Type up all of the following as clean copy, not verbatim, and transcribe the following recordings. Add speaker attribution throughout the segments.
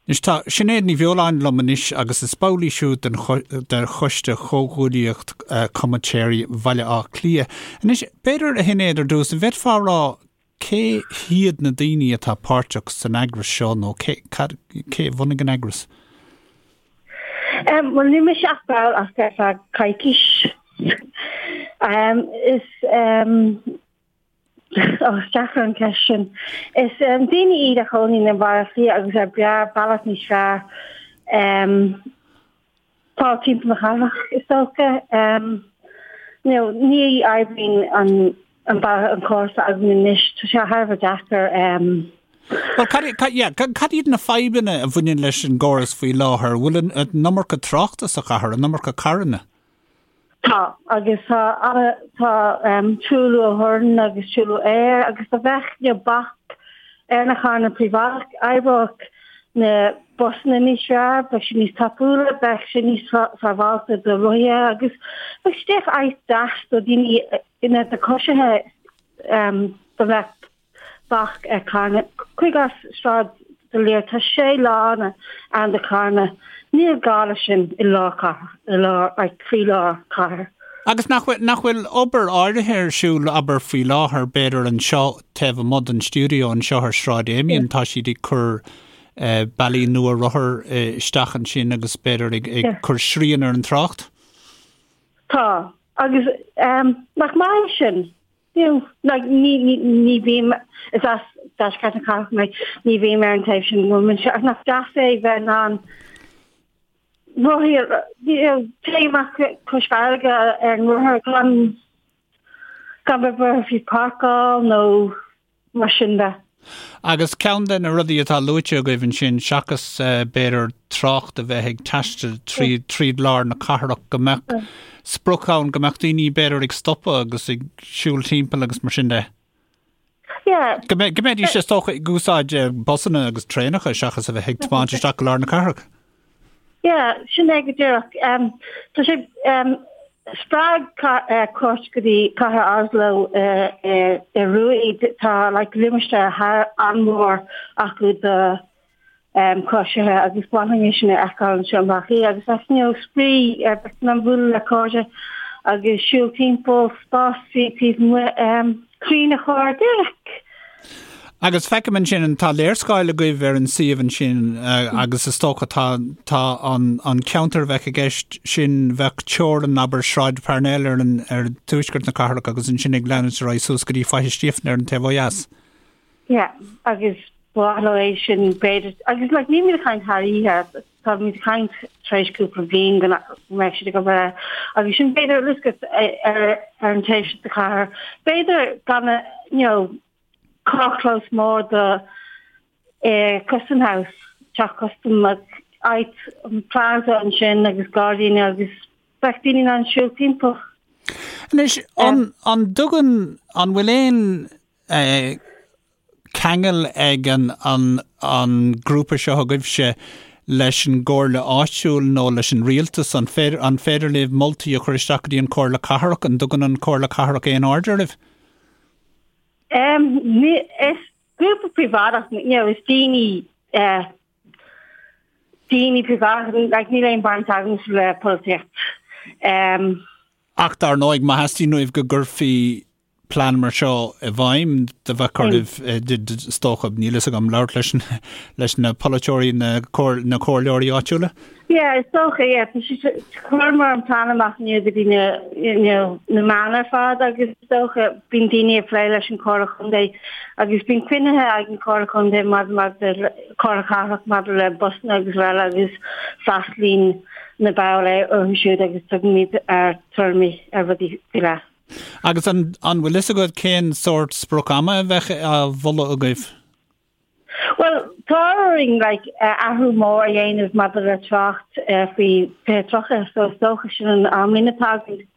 Speaker 1: Anois tá Sinéad Ní Bheoláin liom anois agus is ball í siúd den de Choiste Chomhghuaillíocht Comaitéirí Bhaile Átha Cliath. Anois, b'fhéidir, a Shinéad, ar dtús, an bhféadfá a rá cé hiad na daoine atá páirteach san eagras seo nó cé, cad, cé a bhunaigh an eagras?
Speaker 2: Bhuel, níl mise ach ball ach ar feadh coicís. Is Ó, is deacair an ceist sin. Is daoine iad a chónaíonn i mBaile Átha Cliath agus ar breá bealach níos fearr fáil timpeall na cathrach, is dócha. You know, ní oibríonn an an bealach an córas atá againn anois, tá sé thar a bheith deacair.
Speaker 1: Bhuel, cad, cad, yeah, cad iad na fadhbanna a bhaineann leis an gcóras faoi láthair? Bhfuil an, an iomarca tráchta sa chathair, an iomarca carranna?
Speaker 2: Tá, agus tá ana, tá truailliú ó thorann agus truailliú aeir agus dá mbeadh you know bac ar na carranna príobháideach, oibreodh na busanna níos fearr, bheadh siad níos tapúla, bheadh sé níos sábháilte do rothaithe agus bheadh sé díreach áit deas do dhaoine, you know, do choisithe dá mbeadh bac ar carranna. Cuir i gcás Sráid D'Olier, tá sé lána ann do charranna. Níl gá leis sin i lár cathrach, i lár, like, croílár cathair.
Speaker 1: Agus nach bhfuil, nach bhfuil obair áirithe ar siúl, abair, faoi láthair, b'fhéidir anseo taobh amuigh den stiúideo anseo ar Shráid Amiens, tá siad ag cur bealaí nua rothar isteach ansin agus b'fhéidir ag, ag cur srian ar an trácht?
Speaker 2: Tá. Agus nach maith é sin? You know, like, ní, ní, ní bhím, is as deisceart na cathrach mé, ní bhím ar an taobh sin, bhfuil mise, ach nach deas é bheith in ann rothaí, you know, téigh amach cois farraige ar an rothar gan, gan bheith buartha faoi páirceáil nó mar sin de.
Speaker 1: Agus ceann de na rudaí atá luaite agaibh ansin, seachas b'fhéidir trácht a bheith ag taisteal tríd, tríd lár na cathrach, go mbeadh sprioc ann, go mbeadh daoine b'fhéidir ag stopadh agus ag siúl timpeall agus mar sin de.
Speaker 2: Yeah.
Speaker 1: Go mbe, go mbeidís is dócha ag úsáid busanna agus traenacha seachas a bheith ag tiomáint isteach go lár na cathrach.
Speaker 2: Yeah, sin é go díreach. Tá sé spreag cuairt go dtí cathair Oslo san Iorua. Tá like limistéar thar an-mhór acu do choisithe agus ba mhaith linn é sin a fheiceáil anseo i mBaile Átha Cliath agus like you know spraoi ar bheith in ann bualadh le cairde agus siúl timpeall spás taobh amuigh crainn a chur díreach.
Speaker 1: Agus feicim ansin, tá léarscáil agaibh ar an suíomh ansin agus is dócha tá tá an an ceantar a bheadh i gceist sin bheadh teorainn abair Sráid Parnell ar an ar tuaisceart na cathrach agus ansin ag leanúint ar aghaidh suas go dtí Faiche Stíofáin ar an taobh ó dheas.
Speaker 2: Yeah, agus ba mhaith leo é sin b'fhéidir agus like nílimid ag caint thar oíche táimid ag caint tar éis cúpla bliain go mbeidh siad ag obair air agus sin b'fhéidir Elizabeth ar ar an taobh sin de chathair b'fhéidir gan a you know carrchlós mór do eh, Custom House, teach custam like, áit an plaza ansin agus gairdíní agus bheadh daoine in ann siúl timpeall.
Speaker 1: Anois, an, an dtugann, an bhfuil aon eh, ceangal ag an, an, an grúpa seo agaibhse leis an gcomhairle áitiúil nó leis an rialtas? An féidir, an féidir libh moltaí a chur isteach go dtí an Chomhairle Cathrach? An dtugann an Chomhairle Cathrach aon aird oraibh?
Speaker 2: Um, is grúpa príobháideach, you know, is daoine uh, daoine príobháideach, like, níl aon baint agam le polaitíocht.
Speaker 1: Um, Ach dar ndóigh, má theastaíonn uaibh go gcuirfí plean mar seo i bhfeidhm, do bheadh oraibh, is dócha, níl fhios agam, labhairt leis, leis na polaiteoirí, na, na comhairleoirí áitiúla?
Speaker 2: Yeah, is dócha, yeah. Tá sé, chuireamar an plean amach inniu go dtí na, you know, na meáin ar fad agus is dócha bíonn daoine ag plé leis an Chomhairle Chontae agus bíonn cruinnithe ag an Chomhairle Chontae maidir maidir le Comhairle Cathrach maidir le busanna agus araile agus freastalaíonn na baill orthu siúd agus tugaimid ár dtuairimí ar rudaí faoi leith.
Speaker 1: Agus an, an bhfuil fhios agat cén sórt sprioc ama a bheadh á mholadh agaibh?
Speaker 2: Bhuel, tá orainn like, athrú mór a dhéanamh maidir le trácht faoi 2030, so is dócha sin an amlíne atá againn.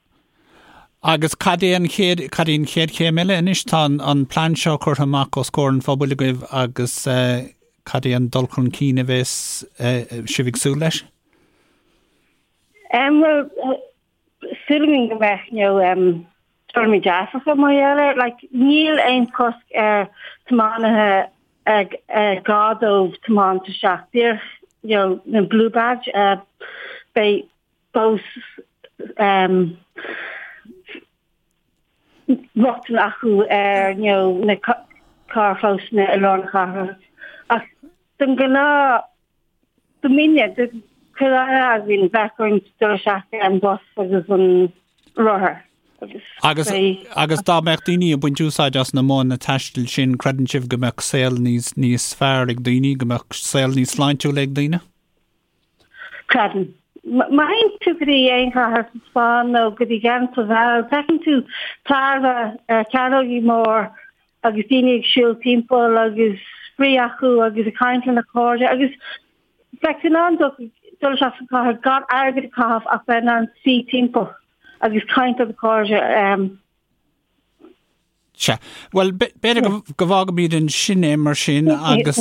Speaker 1: Agus cad é an chéad, cad é an chéad chéim eile anois? Tá an, an plean seo curtha amach os comhair an phobail agaibh agus cad é an dul chun cinn a bheas sibh ag súil leis?
Speaker 2: Bhuel, súil againn go mbeadh, you know, um, tuairimí dearfacha mar gheall air. Like, níl aon chosc ar tiománaithe. Gá dóibh tiomáint isteach díreach you know na blue badge beidh fós rochtain acu ar you know na carrchlósanna i lár na cathrach ach don ghnáth Do mine, do chuile dhuine againn bheadh orainn dul isteach ar an bus agus an rothar
Speaker 1: agus Agus, agus dá mbeadh daoine ag baint úsáid as na modhanna taistil sin, creideann sibh go mbeadh saol níos, níos fearr ag daoine, go mbeadh saol níos sláintiúla ag daoine?
Speaker 2: Creidim. Má théann tú go dtí aon chathair sa Spáinn nó go dtí Gent sa Bheilg, feiceann tú tairbhe ar chearnógaí mór agus daoine ag siúl timpeall agus spraoi acu agus ag caint lena chairde agus bheadh tú in ann dul isteach sa chathair gan airgead a chaitheamh ach bheith in ann suí timpeall agus caint le do chairde.
Speaker 1: Sea. Bhuel, b'fhéidir go bhfágfaimid ansin é mar sin agus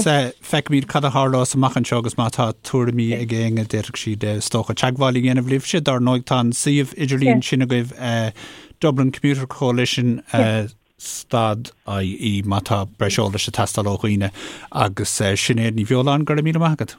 Speaker 1: feicfimid cad a tharlós amach anseo agus má tá tuairimí ag éinne d'fhéadfadh siad is dócha teagmháil a dhéanamh libhse. Dar ndóigh tá an suíomh idirlín sin agaibh Dublin Commuter Coalition stad IE má tá breis eolais ag teastáil ó dhaoine agus Sinéad Ní Bheoláin, go raibh míle maith agat.